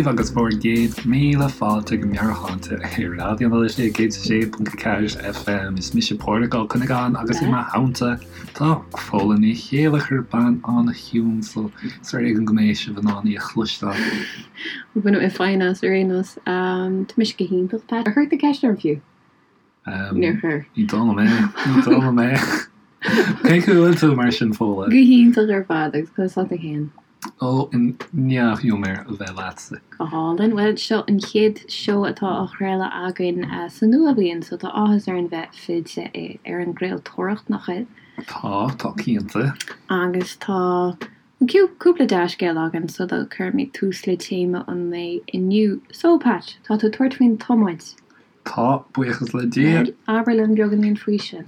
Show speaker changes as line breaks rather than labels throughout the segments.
daoibh agus bhur gcéad míle fáilte go Meabhairshláinte ar Raidió na Life 106.4 FM. Is mise Pádraig Ó Cuinneagáin agus i mo theannta tá Fódhla Ní Chéilleachair, bean an-chiúin so is ar éigean go mbeidh sibh in ann í a chloisteáil.
Bhain mé feidhm as ar aon nós. Tá mise go hiontach, Pat. Ar chuir tú ceist orm fiú? Níor chuir.
Ní dóigh liom é. Ní dóigh liom é. Cén chaoi a bhfuil tú mar sin, Fódhla?
Go hiontach ar fad agus conas tá tú féin?
Ó, i ndea-ghiúmar a bheith leatsa.
Go hálainn. Bhuel, seo an chéad seó atá á chraoladh againn sa nua-bhliain, so tá áthas orainn bheith fillte ar an gcraoltóireacht, nach bhfuil?
Tá, tá cinnte.
Agus tá cúpla dea-scéal againn sula gcuirimid tús le téama an lae inniu. So, Pat, tá tú ag tabhairt faoin tiomáint.
Tá, buíochas le Dia.
Bhuel, abair linn beagáinín faoi sin.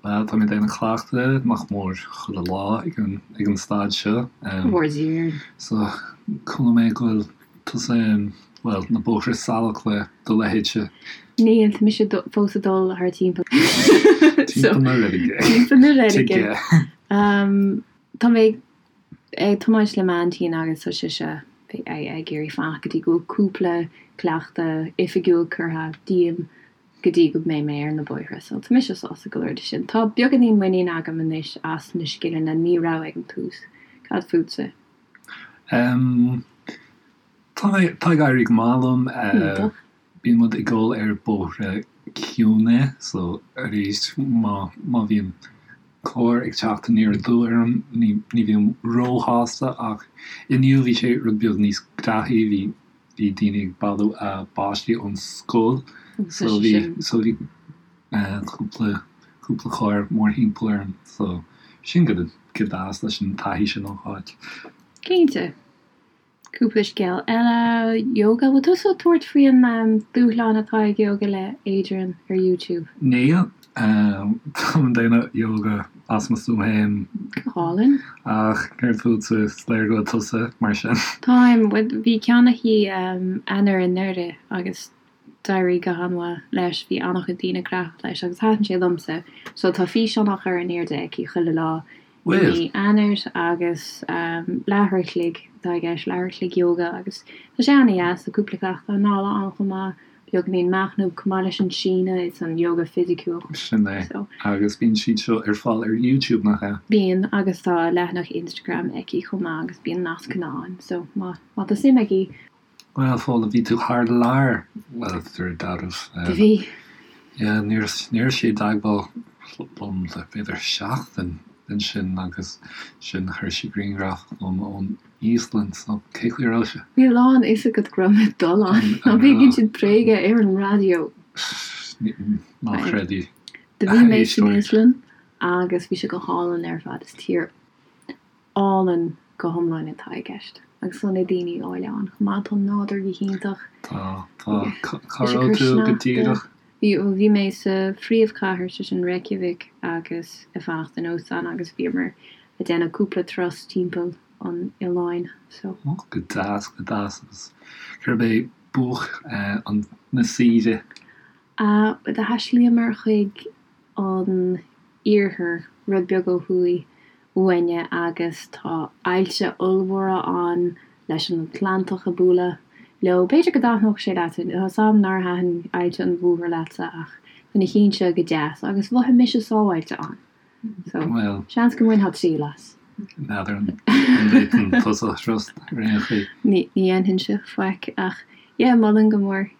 Bhuel, tá mé ag déanamh cleachtadh nach mór chuile lá ag an, ag an staid seo.
Mhór Dia.
So, chuala mé go bhfuil tusa, bhuel, na bóithre salach le do leithéidse.
Níl, tá mise fós ag dul thar timpeall.
Timpeall na reilige.
Timpeall na reilige. Tá mé ag tiomáint le m'aintín agus tá sise ag iarraidh fanacht go dtí go bhfuil cúpla cleachtadh oifigiúil curtha díom go dtí go mbeidh mé ar na bóithre. So tá mise sásta go leor de sin. Tá beagáinín muinín agam anois as na scileanna ní raibh ag an tús. Cad fútsa?
Em, tá mé, tá ag éirí go maith liom.
Iontach.
Bíonn muid ag dul ar bóithre ciúine so arís má, má bhíonn carr ag teacht aniar aduaidh orm ní, ní bhím róshásta ach inniu bhí sé rud beag níos graithí, bhí, bhí daoine ag bailiú a bpáistí ón scoil so bhí, so bhí cúpla, cúpla carr mórthimpeall orm so sin go, go deas leis an taithí sin a fháil.
Cinnte. Cúpla scéal eile, Yoga, bhfuil tusa ag tabhairt faoi an dúshlán atá ag Yoga le Adriene ar YouTube?
Níl. Táim ag déanamh yoga as mo stuaim féin.
Go hálainn.
Ach céard fútsa? Is léir go bhfuil tusa mar sin.
Táim. Bhí ceann aici Eanáir anuraidh agus d'éirigh go han-mhaith leis. Bhí an-chuid daoine gnóthach leis agus thaitin sé liomsa. So tá físeán á chur in airde aici chuile lá i mí Eanáir agus leathuair a chloig atá i gceist, leathuair a chloig yoga agus tá sé an-dheas, tá cúpla cleachtadh anála ann chomh maith, beagáinín machnaimh chomh maith leis an síneadh is an yoga fisiciúil.
Sin é. Agus bíonn siad seo ar fáil ar YouTube, nach ea?
Bíonn, agus tá leathanach Instagram aici chomh maith agus bíonn nascanna ann so má tá suim agaibh.
Bhuel, Fódhla, bhí tú thar lear, bhuel, de réir dealraimh.
Bhí.
Yeah, ní raibh sí i dteagmháil liom le b'fhéidir seachtain ansin agus sin chuir sí grianghraf chugam ón Íoslainn, so cé chaoi a raibh sé?
Bhí a lán fhios agat go raibh mé ag dul ann, ná bí ag insint bréige ar an raidió.
Ná creid í.
Do bhí mé san Íoslainn agus bhí sé go hálainn ar fad, is tír álainn go hiomlán atá i gceist. Agus tá na daoine áille ann chomh maith. Tá an nádúr go hiontach.
Tá, tá. Cá raibh tú go díreach?
Bhí, bhí mé sa phríomhchathair, sé sin Reykjavik, agus ag fanacht in óstán agus bhíomar ag déanamh cúpla turas timpeall an oileáin. So.
Ó, go deas, go deas. Agus cérbh é buaic an, na saoire?
Do thaistealaíomar chuig an iarthar, rud beag ó thuaidh uainne agus tá aillte ollmhóra ann leis an Atlantach ag bualadh leo. B'fhéidir go dtaitneodh sé leat, tá 's a'm nár thaitin Aillte an Mhothair leatsa ach tá na cinn seo go deas agus mhothaigh mise sábháilte ann. So, seans go mbainfeá triail as.
N'fheadar an bhféadfainn tusa a thrust ar aon chaoi.
Ní dhéanfainnse faic ach yeah, molaim go mór.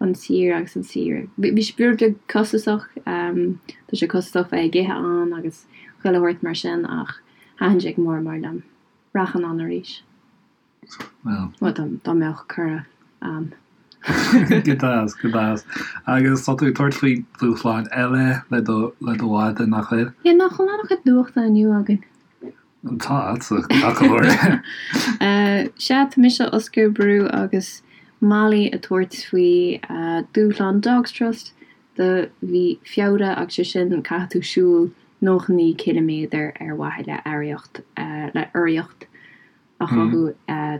an tír agus an saoire. Bhí sé rud beag costasach, tá sé costasach bheith ag ithe ann agus chuile shórt mar sin ach thaitin sé go mór mór liom. Rachainn ann arís.
Bhuel.
Bhuel, dá mbeadh cuireadh a'm.
Go deas, go deas. Agus tá tú ag tabhairt faoi dhúshláin eile le do, le do mhadadh, nach bhfuil?
Yeah, nach bhfuil an-chuid nuachta inniu againn.
Tá, ach go háirithe.
Sea, tá mise, Oscar Brú agus Molly ag tabhairt faoi dúshlán Dogs Trust do mhí Feabhra agus sé sin caithfidh tú siúl 99 ciliméadar ar mhaithe le urraíocht le urraíocht a chothú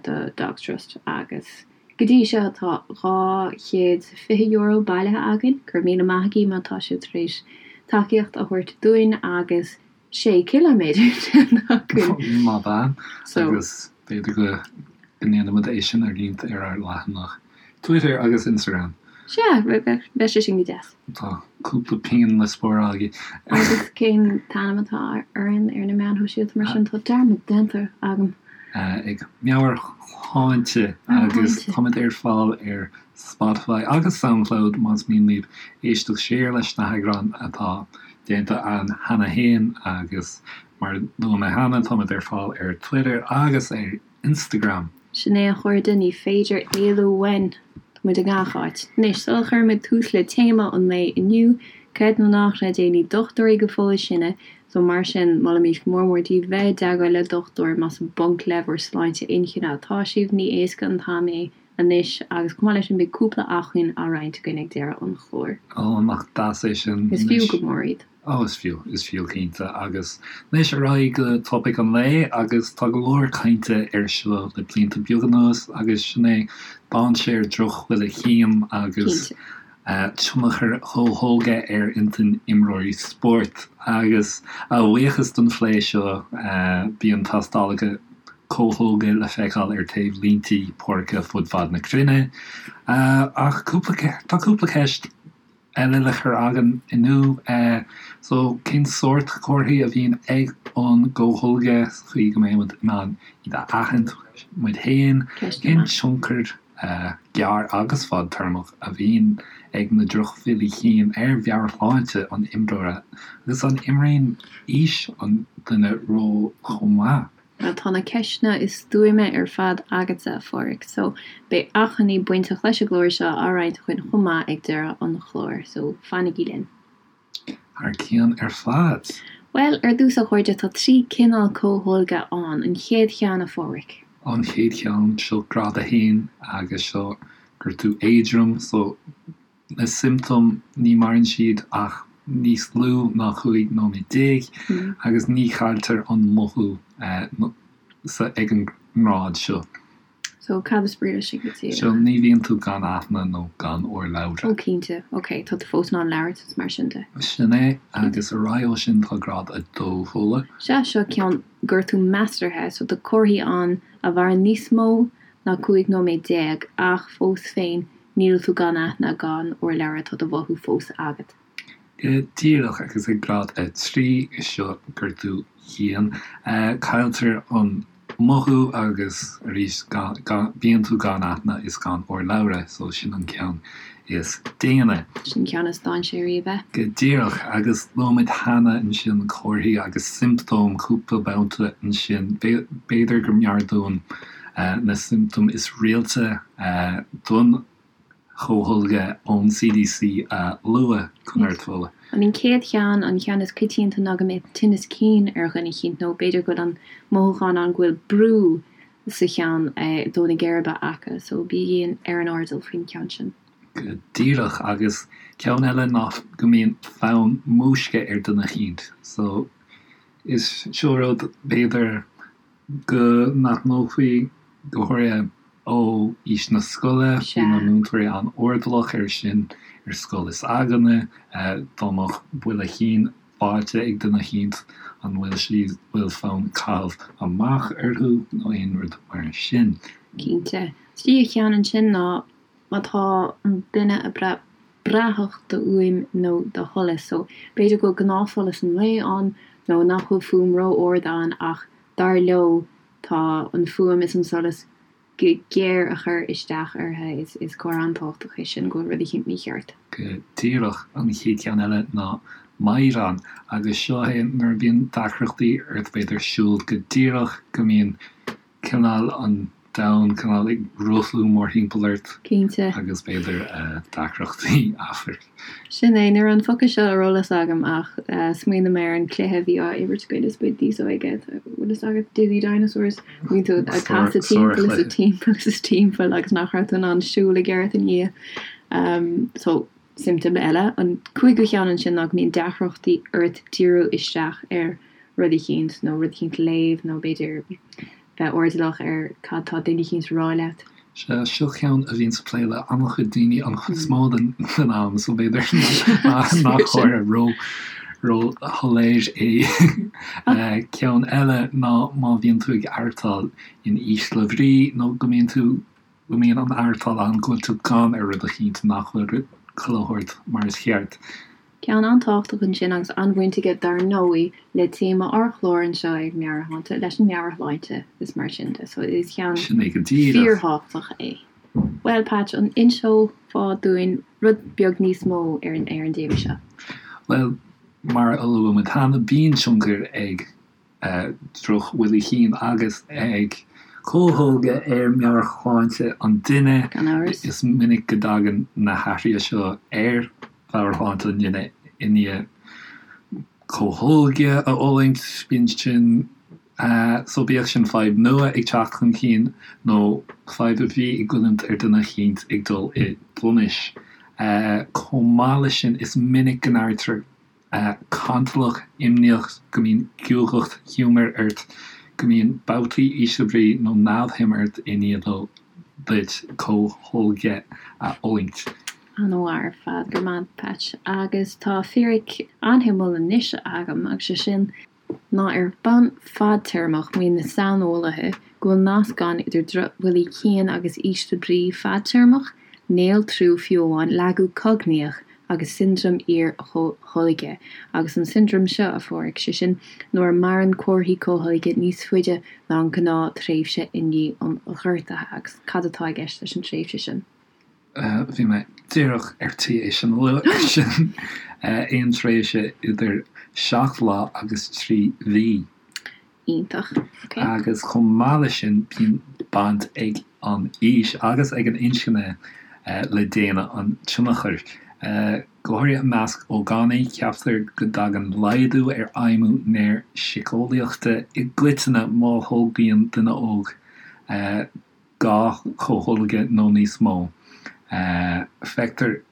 do Dogs Trust agus go dtí seo tá €220 bailithe againn. Go raibh míle maith agaibh má tá sibh tar éis tacaíocht a thabhairt dúinn agus 6 ciliméadar déanta againn.
Maith bean. Agus b'fhéidir go. go ndéanfaimid é sin a roinnt ar ár leathanach Twitter agus Instagram.
Sea, bheadh sé sin go deas.
Tá cúpla pingin le spáráil agaibh.
Agus cén t-ainm atá orainn ar na meáin shóisialta mar sin? Tá dearmad déanta agam.
Ag Meabhairshláinte agus táimid ar fáil ar Spotify agus Soundcloud más mian libh éisteacht siar leis na heagráin atá déanta againn cheana féin agus mar a luaigh mé cheana táimid ar fáil ar Twitter agus ar Instagram.
Sin é a chairde, ní féidir éalú uainn! Tá muid i ngach áit. Anois, sula chuirimid tús le téama an lae inniu, creid nó ná creid é, ní dochtúirí go fóill sinne, so mar sin, molaimid go mór mór daoibh bheith i dteagmháil le dochtúir más i bponc le bhur sláinte inchinne atá sibh, ní éasca an t-am é anois, agus chomh maith leis sin beidh cúpla acmhainn á roinnt againn ag deireadh an chláir.
Ó, nach deas é sin.
Is fiú go mór iad.
Ó, is fiú, is fiú cinnte. Agus anois ar aghaidh go topaic an lae agus tá go leor cainte air seo le blianta beaga anuas agus sin é dainséar drochbhuille chinn agus tionchar comhtholgtha ar intinn imreoirí spóirt. Agus a bhuíochas don phlé seo bíonn tástálacha comhtholgtha le feiceáil ar taobh línte páirce fud fad na cruinne. Ach cúpla, tá cúpla ceist eile le cur againn inniu. So, cén sórt comharthaí a bhíonn ag an gcomhtholgadh sa chaoi go mbeidh muid in ann iad a aithint muid féin? Cén tionchar gearr agus fadtéarmach a bhíonn ag na drochbhuillí cinn ar mheabhairshláinte an imreora agus an imríonn aois an duine ról chomh maith?
Bhuel, tá na ceisteanna is stuaime ar fad agatsa, a Pháraic, so beidh acmhainní bainteach leis an gclár seo á roinnt againn chomh maith ag deireadh an chláir, so fanaigí linn.
Thar cionn ar fad.
Bhuel, ar dtús, a chairde, tá 3 cineál comhtholgtha ann. An chéad cheann, a Pháraic.
An chéad cheann, seo grád 1 agus seo gortú éadrom, so Na siomptóim, ní maireann siad ach níos lú ná 15 nóiméad agus ní chailltear an mothú ag an ngrád seo.
So, cad is brí leis sin go
díreach? So, ní bhíonn tú gan aithne nó gan urlabhra.
Ó cinnte, ok, tá tú fós in ann labhairt is mar sin de.
Sin é, agus ar aghaidh ó sin tá grád 2, Fódhla.
Sea, seo ceann gortú measartha, so tá comharthaí ann a mhaireann níos mó ná 15 nóiméad ach fós féin Níl tú gan aithne, gan urlabhra, tá do mhothú fós agat.
Go díreach, agus ag grád 3, seo gortú dian, cailltear an mothú agus arís bíonn tú gan aithne is gan urlabhra, so sin an ceann is déine.
Sin ceann is dainséaraí, ab ea?
Go díreach, agus luaigh muid cheana ansin comharthaí agus siomptóim cúpla babhta ansin, b'fhéidir go mb'fhearr dúinn na siomptóim is rialta don chomhtholgadh ón CDC a lua, conas, a Fhódhla.
An chéad cheann, an ceann is coitianta ná go mbeadh tinneas cinn ar dhuine eicínt nó b'fhéidir go bhfuil an mothúchán ann go bhfuil brú sa cheann i dtreo na geirbe acu so bígí ar an airdeall faoin cheann sin.
Go díreach, agus ceann eile ná go mbíonn fonn múisce ar dhuine eicínt so is seo rud b'fhéidir go n-aithneofaí, go háirithe ó aois na scoile, bhí na múinteoirí an-airdeallach air sin ar scoil is againne, dá mbeadh buille chinn faighte ag duine eicínt, an bhfuil siad, bhfuil fonn caitheamh amach orthu nó aon rud mar sin.
Cinnte. Tríú cheann ansin ná má tá an duine ag brath brathach do fhuaim nó do sholas. So, b'fhéidir go bhfuil gnáthsholas an lae ann nó nach bhfuil fuaim ró-ard ann ach dar leo tá an fuaim is an solas go géar a chur isteach orthu. Is comhartha an-tábhachtach é sin go bhfuil rud eicínt mícheart.
Go díreach. An chéad cheann eile ná meadhrán agus seo é nuair a bhíonn deacrachtaí ort b'fhéidir siúl go díreach go mbíonn cineál an domhan cineál ag rothlú mórthimpeall ort.
Cinnte.
Agus b'fhéidir deacrachtaí amhairc.
Sin é, ní raibh an focal seo ar eolas agam ach smaoinigh mé ar an cluiche a bhí á imirt againn is muid níos óige, bhfuil fhios agat, Dizzy Dinosaurs, bhí tú ag casadh timpeall is timpeall is timpeall agus nach raibh tú in ann siúl i gceart ina dhiaidh. So, siomptóm eile. An cúigiú cheann ansin ná go mbíonn deacrachtaí ort díriú isteach ar rud eicínt nó rud eicínt a léamh nó b'fhéidir bheith airdeallach ar cad tá duine eicínt a rá leat.
Sea, seo ceann a bhíonns ag plé le an-chuid daoine an chuid is mó den am so b'fhéidir nach chóir ró. Ró-shoiléir é. Ceann eile ná má bhíonn tú ag aireachtáil in ísle bhrí nó go mbíonn tú, go mbíonn an aireachtáil ann go bhfuil tú gann ar rud eicínt nach bhfuil chuile shórt mar is cheart.
Ceann an-tábhachtach ansin agus an-bhaint aige dar ndóigh le téama ár chláir anseo ag Meabhairshláinte, leis an meabhairshláinte is mar sin de. So is ceann
Sin é go díreach.
fíorthábhachtach é. Bhuel Patch, an inseofá dúinn rud beag níos mó ar an ar an dtéama seo?
Bhuel, mar a luaigh muid cheana, bíonn tionchar ag drochbhuillí cinn agus ag comhtholgadh ar mheabhairshláinte an duine.
Gan amhras.
Is minic go dtagann na hathruithe seo ar mheabhairshláinte an duine i ndiaidh comhtholgadh a fhulaingt. Bíonn sin, so bíodh sin fadhb nua ag teacht chun cinn nó fadhb a bhí ag goilliúint ar dhuine eicínt ag dul i dtonis. Chomh maith leis sin, is minic go n-airítear cantalach, imníoch, go mbíonn guagacht ghiúmair ort, go mbíonn babhtaí ísle brí nó neamhshuim ort i ndiaidh duit comhtholgadh a fhulaingt.
An-mhaith ar fad, go raibh maith agat Patch. Agus tá fíric an-shuimiúil anois agam agus sé sin ná ar bhonn fadtéarmach, maíonn na saineolaithe go bhfuil nasc ann idir drochbhuillí cinn agus ísle brí fadtéarmach, néaltrú fiú amháin, lagú cognaíoch agus siondróm iar-chomhtholgtha. Agus an siondróm seo, a Pháraic, sé sin nuair a maireann comharthaí comhtholgtha níos faide ná an ghnáth-thréimhse i ndiaidh an ghortaithe. Agus cad atá i gceist leis an tréimhse sin?
Bhí mé díreach ar tí é sin a lua, sin aon tréimhse idir 7 lá agus 3 mhí.
Iontach. Ok.
Agus chomh maith leis sin, bíonn baint ag an aois agus ag an inscne le déine an tionchair. Go háirithe i measc ógánaigh, ceaptar go dtagann laghdú ar fheidhmiú néarshiceolaíochta i gcoitinne má tholgaíonn duine óg 2 chomhtholgadh nó níos mó. Feictear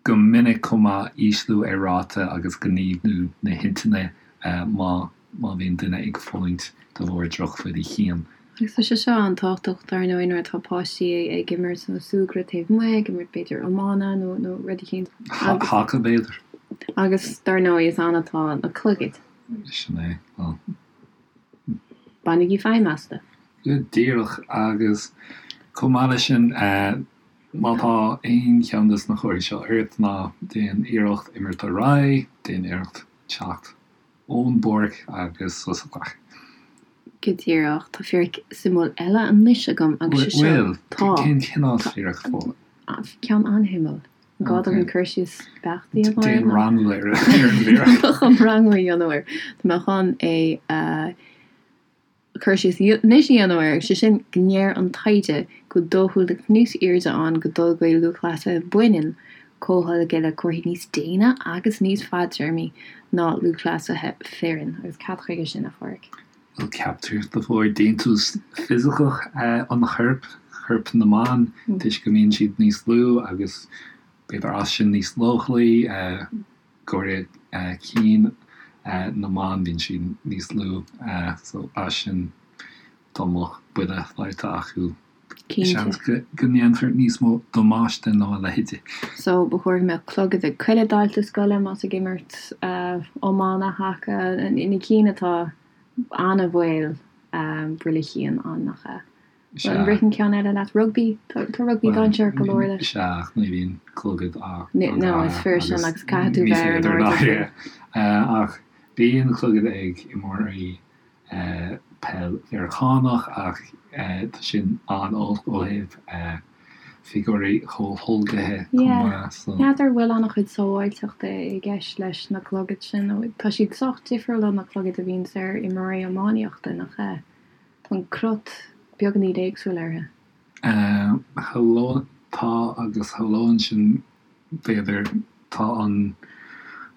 go minic chomh maith ísliú ar ráta agus gníomhú na hintinne má má bhíonn duine ag fulaingt de bharr drochbhuillí cinn.
Agus tá sé seo an-tábhachtach dar ndóigh nuair atá páistí ag imirt nó súgradh taobh amuigh, ag imirt b'fhéidir iomána nó nó rud eicínt.
Haca b'fhéidir.
Agus dar ndóigh is ann atá na clogaid.
Sin é. Bhuel.
Bainigí feidhm astu.
Go díreach, agus chomh maith leis sin, má tá aon cheann de na comharthaí seo ort, ná déan iarracht imirt ar aghaidh, déan iarracht teacht ón bpáirc agus sos a ghlacadh.
Go díreach. Tá fíric suimiúil eile anois agam agus sé seo.
Bhfuil?
Tá.
Cén cineál fíric Fódhla?
Ceann an-shuimiúil. An gá dom cur síos beacht a dhéanamh air?
Déan rangú ar an bhfíric.
Tá mé chun rangú a dhéanamh air. Tá mé chun é a cur síos anois a dhéanamh air, sé sin go ndeir an taighde go bhfuil dóchúlacht níos airde ann go dtolgfaidh lúthchleasaithe baineann comhtholgadh le comharthaí níos déine agus níos fadtéarmaí ná lúthchleasaithe fireann. Agus cad chuige sin, a Pháraic?
Bhuel, ceaptar de bharr déantús fisiceach an choirp, corp na mban, toisc go mbíonn siad níos lú agus b'fhéidir as sin níos leochailí, go háirithe cinn na mban, bíonn siad níos lú so as sin dá mbeadh buille faighte acu.
Cinnte.
Seans go ndéanfar níos mó damáiste ná a leithéidí.
So, ba chóir go mbeadh clogad ag chuile dalta scoile más ag imirt iomána, haca, na cinn atá an-bhaol buille chinn ann, nach ea?
Sea.
An ritheann ceann eile leat? Rugbaí? Tá rugbaí dainséarach go leor leis.
Sea, ach ní bhíonn clogad á
No, is fíor sin agus caithfidh tú bheith ar an airdeall faoi.
Ach bíonn clogad ag imreoirí peil Mheiriceánach ach tá sin an-olc ó thaobh figiúirí comhtholgaithe chomh maith
so. N'fheadar an bhfuil an-chuid sábháilteachta i gceist leis na clogaid sin nó tá siad sách difriúil ó na clogaid a bhíonns ar imreoirí iománaíochta, nach ea? Tá an crot beagáinín éagsúil orthu.
Shamhlóinn, tá agus shamhlóinn sin b'fhéidir, tá an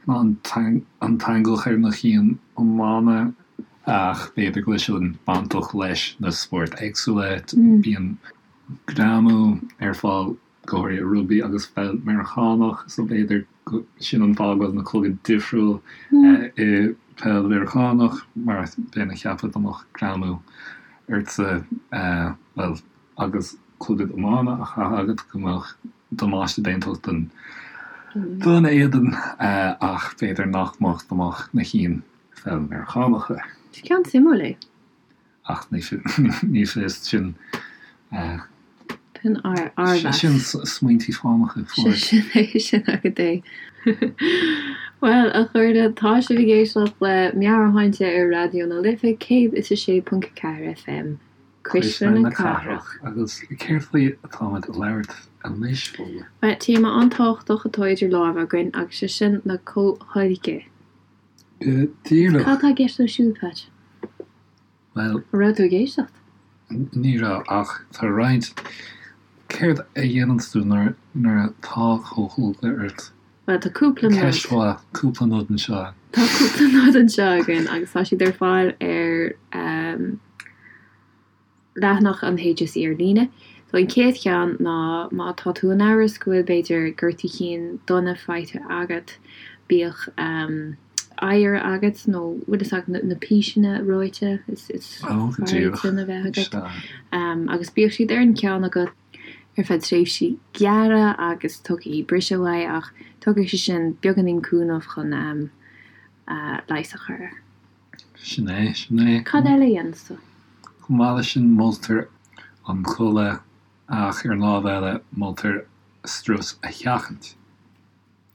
an t-eangach ar na cinn iomána ach b'fhéidir go bhfuil sin bainteach leis na spóirt éagsúla. Bíonn greamú ar fáil go háirithe i rugbaí agus pheil Meiriceánach so b'fhéidir go sin an fáth go bhfuil na clogaid difriúil i peil Mheiriceánach mar bheinn ag ceapadh dá mbeadh greamú ortsa bhuel agus clogad iomána á chaitheamh agat go mbeadh damáiste déanta don. Don éadan ach b'fhéidir nach mbeadh dá mbeadh na cinn pheil Meiriceánacha.
Is ceann suimiúil é.
Ach ní fios, sin.
Sin ár mheas.
Sin smaointí fánacha
fós. Sin é, sin agat é. Bhuel, a chairde, tá sibh ag éisteacht le Meabhairshláinte ar Raidió na Life 106.4 FM,
Cuisle na Cathrach. Agus céard faoi atáimid a labhairt anois,
Fódhla? Bhuel, téama an-tábhachtach atá idir lámha againn agus sé sin na comhtholgtha.
Go díreach.
Cad tá i gceist leo siúd, Pat?
Bhuel.
An raibh tú ag éisteacht?
Ní raibh, ach tá roinnt. Céard a dhéananns tú nuair atá comhtholgadh ort?
Bhuel, tá cúpla
nod. Ceist mhaith. Cúpla nod anseo.
Tá cúpla nod anseo againn agus tá siad ar fáil ar leathanach an HSE ar líne. So an chéad cheann ná má tá tú in amhras go bhfuil b'fhéidir gortú cinn dona faighte agat, bíodh oighear agat nó bhfuil fhios agat na píseanna reoite is fearr iad sin a bheith agat agus bíodh siad ar an gceann agat ar feadh tréimhsí gearra agus tugaigí briseadh uaidh ach tugann sé sin beagáinín cúnamh chun leigheas a chur air.
Sin é, sin é.
Cad eile a dhéanas tú?
Chomh maith leis sin moltar an codladh ach ar an lámh eile moltar strus a sheachaint.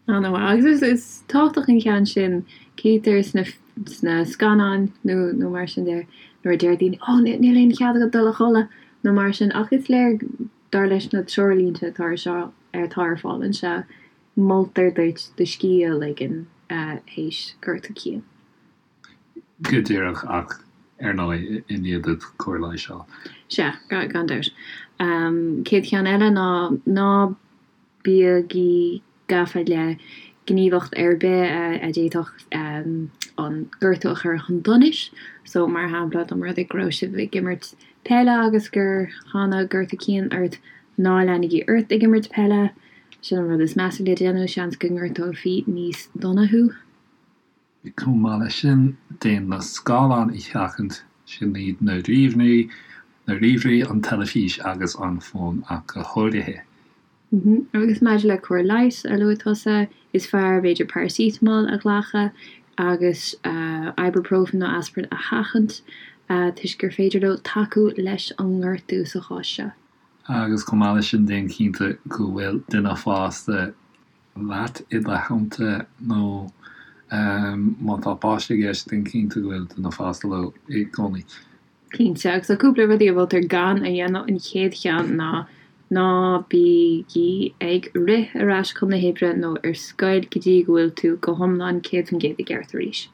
An-mhaith. Agus is tábhachtach an ceann sin, cítear sna sna scannáin nó nó mar sin de nuair a deir daoine 'Ó níl aon chead agat dul a chodladh' nó mar sin ach is léir dar leis na treoirlínte atá ar seo atá ar fáil anseo moltar duit do scíth a ligean théis gortú cinn.
Go díreach, ach ar ndóigh i ndiaidh duit cóir leighis a fháil.
Sea, gan dabht. Chéad cheann eile ná ná bígí gafa le gníomhaíocht ar bith a d'fhéadfadh an gortú a chur chun donais. So, mar shampla, dá mba rud é go raibh sibh ag imirt peile agus gur tháinig gortú cinn ort, ná leanaigí ort ag imirt peile. Sin an rud is measa le déanamh, seans go ngortófaí níos dona thú.
Chomh maith leis sin, déan na scáileáin a sheachaint, sin iad na ríomhairí, na ríomhairí, an teilifís agus an fón ach go háirithe.
Agus maidir le cóir leighis a luaigh tusa, is fearr b'fhéidir paracetamol a ghlacadh agus ibuprofen nó aspirin a sheachaint toisc gur féidir leo tacú leis an ngortú sa chás seo.
Agus chomh maith leis sin, déan cinnte go bhfuil duine fásta leat i do theannta nó má tá páiste i gceist, déan cinnte go bhfuil duine fásta leo i gcónaí.
Cinnte, agus tá cúpla rudaí a mholtar gan a dhéanamh. An chéad cheann ná ná bígí ag rith ar ais chun na hoibre nó ar scoil go dtí go bhfuil tú go hiomlán 100% i gceart arís.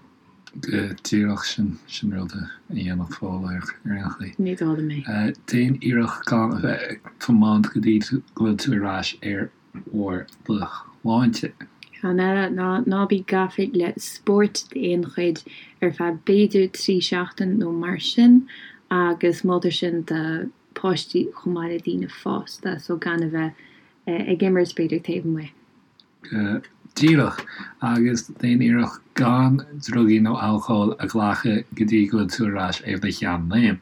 Go díreach, sin, sin rud a dhéanfadh Fódhla ar aon
chaoi. Ní dóigh liom
é. Déan iarracht gan a bheith ag tiomáint go dtí go bhfuil tú ar ais ar bharr do shláinte.
Ceann eile ná ná bí gafa le spórt d'aon chuid ar feadh b'fhéidir 3 seachtain nó mar sin agus moltar sin do páistí chomh maith le daoine fásta so gan a bheith ag imirt b'fhéidir taobh amuigh.
Go díreach, agus déan iarracht gan drugaí nó alcól a ghlacadh go dtí go bhfuil tú ar ais ar do sheanléim.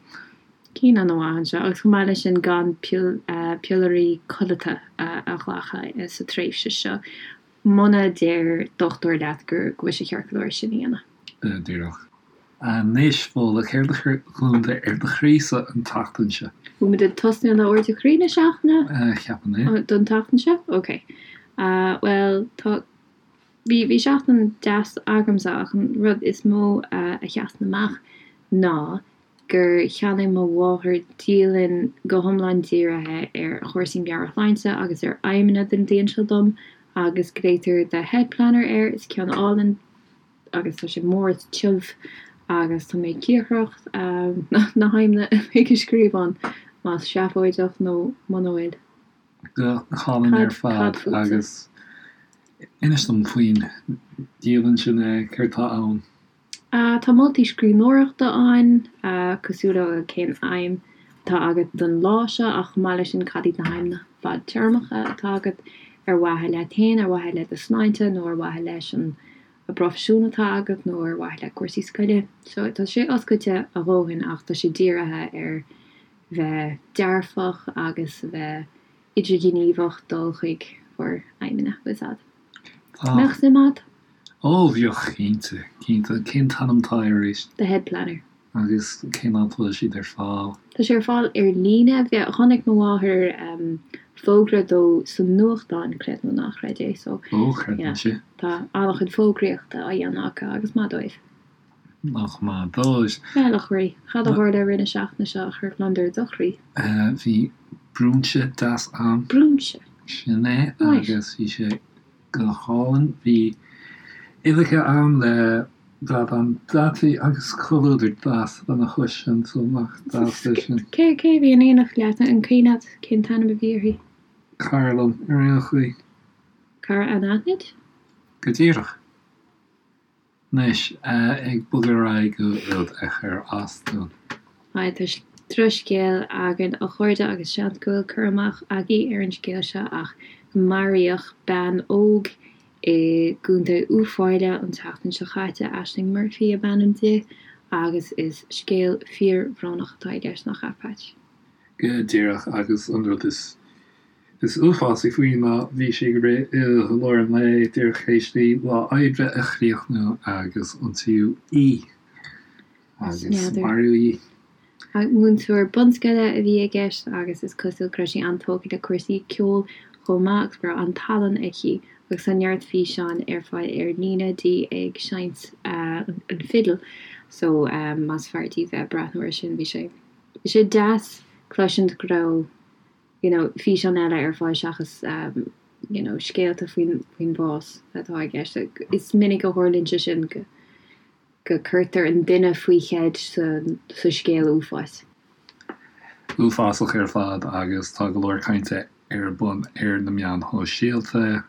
Cinn an-mhaith anseo, agus chomh maith leis sin gan piollairí codlata a ghlacadh sa tréimhse seo, muna deir dochtúir leat go bhfuil sé ceart go leor sin a
dhéanamh. Díreach. Anois, Fódhla, céard a chuir gliondar ar do chroí-sa an tseachtain seo?
Bhfuil muid ag tosnú le ardú croí na seachtaine?
Ceapaim é.
Don tseachtain seo? Ok. Bhuel, tá, bhí, bhí seachtain deas agamsa ach an rud is mó a sheasann amach ná gur cheannaigh mo mháthair dialann go hiomlán dírithe ar chúrsaí meabhairshláinte agus ar aidhmeanna don bhliain seo dom agus glaotar The Head Planner air. Is ceann álainn agus tá sé mór is tiubh agus tá mé cíocrach na haidhmeanna a bheidh a scríobh ann, más seafóideach nó muna bhfuil.
Go hálainn ar fad agus inis dom faoin dialann sin, céard tá ann?
Tá moltaí scríbhneoireachta ann, cosúil le cén aidhm atá agat don lá seo ach chomh maith leis sin cad iad na haidhmeanna fadtéarmacha atá agat ar mhaithe leat féin, ar mhaithe le do shláinte nó ar mhaithe leis an bproifisiún atá agat nó ar mhaithe le cúrsaí scoile. So tá sé oscailte a dhóthain ach tá sé dírithe ar bheith dearfach agus a bheith idirghníomhach dul chuig bhur aidhmeanna, bhfuil 's a'd.
Tá.
Mbeadh suim agat?
Ó, bheadh, cinnte, cinnte. Cén t-ainm atá air arís?
The Head Planner.
Agus cén áit a bhfuil siad ar fáil?
Tá sé ar fáil ar líne. Chonaic mo mháthair fógra dó sa nuachtán, creid nó ná creid é, so.
Ó, creidim
sin. Tá an-chuid fógraíochta á dhéanamh acu agus maith dóibh.
Nach maith dóibh.
Bhuel, a chroí, cad a tharla i rith na seachtaine seo a chuir gliondar i do chroí?
Bhí brúinse deas ann.
Brúinse?
Sin é, agus bhí sé go hálainn. Bhí uibheacha ann le bradán deataí agus comhluadar deas lena chois sin, so nach deas é sin.
Cé cé a bhí in éineacht leat? An cuimhin leat cén t-ainm a bhí uirthi?
Cara liom, ar aon chaoi.
Cara anaithnid?
Go díreach. Anois, ag bogadh ar aghaidh go rud a chuir as dúinn.
Aye, tá drochscéal againn a chairde agus seans go bhfuil cur amach agaibh ar an scéal seo ach maraíodh bean óg i gContae Uíbh Fhailí an tseachtain seo chaite, Aisling Murphy ab ainm di, agus is scéal fíorbhrónach atá i gceist, nach ea, Patch?
Go díreach, agus an rud is Is uafásaí faoi ná bhí sí ag rith i lár an lae díreach théis di lá oibre a chríochnú agus ionsaíodh í agus maraíodh í.
Múinteoir bunscoile a bhí i gceist agus is cosúil go raibh sí an-tógtha le cúrsaí ceoil chomh maith agus go raibh an-tallann aici agus tá neart físeáin ar fáil ar líne di ag seinnt an fidil so más fearr daoibh bheith ag breathnú air sin bhí sé bhí sé deas cloisint go raibh you know físeán eile ar fáil seachas you know scéalta faoin faoin bhás atá i gceist. Is minic a tharlaíonn sé sin go go cuirtear an duine faoi cheid sa sa scéal uafáis.
Uafásach ar fad agus tá go leor cainte ar bun ar na meáin shóisialta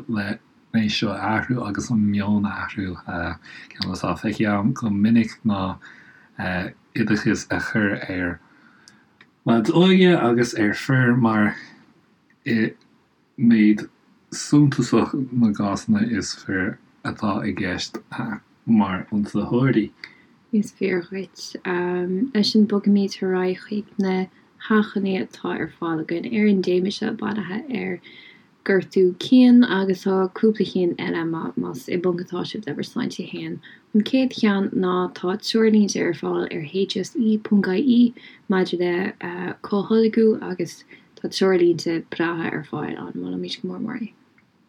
le é seo a athrú agus an meon a athrú. Ceann atá feicthe agam go minic ná oideachas a chur ar leaids óga agus ar fir mar i méid suntasach na gcásanna is fir atá i gceist mar ionsaitheoirí.
Is fíor dhuit. Leis sin bogfaimid ar aghaidh chuig na hachainí atá ar fáil againn ar an dtéama seo bunaithe ar Gortú cinn agus tá cúpla cinn eile más i bponc atá sibh le bhur sláinte féin. An chéad cheann ná tá treoirlínte ar fáil ar hse.ie maidir le comhtholgadh agus tá treoirlínte breátha ar fáil ann, molaimid go mór mór é.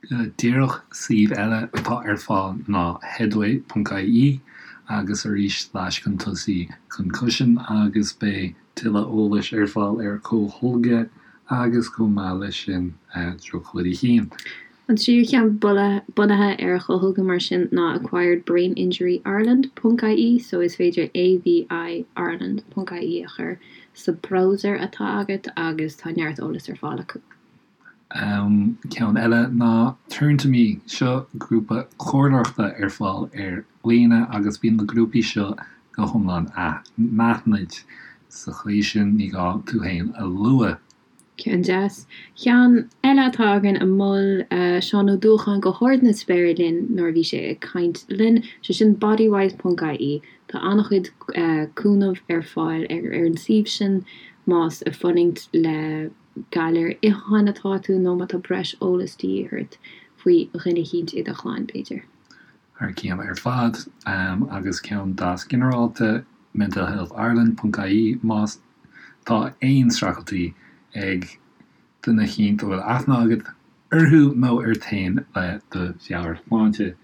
Go díreach, suíomh eile atá ar fáil ná headway.ie agus arís slash chun tosaigh concussion agus beidh tuilleadh eolais ar fáil ar comhtholgadh agus chomh maith leis sin drochbhuillí cinn.
An tríú ceann bunaithe ar chomhtholgadh mar sin ná Acquired Brain Injury Ireland ponc ie so is féidir ABI Ireland ponc ie a chur sa browser atá agat agus tá neart eolais ar fáil acu.
Ceann eile ná Turn to Me, seo grúpa comhairleoireachta ar fáil ar líne agus bíonn na grúpaí seo go hiomlán anaithnid, sa chaoi sin ní gá tú féin a lua.
Ceann deas. Ceann eile atá againn a mhol Seán Ó Dúacháin go hard na spéire linn nuair a bhí sé ag caint linn, sé sin bodywhys ponc ie. Tá an-chuid cúnamh ar fáil ar an suíomh sin más ag fulaingt le galar itheacháin atá tú nó má tá breis eolais de dhíth ort faoi dhuine eicínt i do chlann, b'fhéidir.
Thar cionn ar fad, agus ceann deas ginearálta, mentalhealthireland ponc ie más tá aon streachailtí ag duine eicínt a bhfuil aithne agat orthu nó ort féin le do mheabhairshláinte.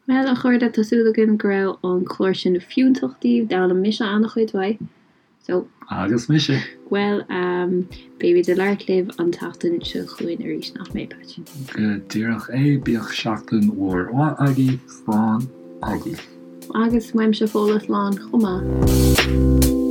Bhuel, a chairde, tá súil againn go raibh an clár sin fiúntach daoibh. D'fhoghlaim mise an-chuid uaidh. So.
Agus mise.
Bhuel, beimid ag labhairt libh an tseachtain seo chugainn arís, nach mbeidh, Patch?
Go díreach é. Bíodh seachtain mhór mhaith agaibh. Slán agaibh.
Agus uaimse Fódhla, slán chomh maith.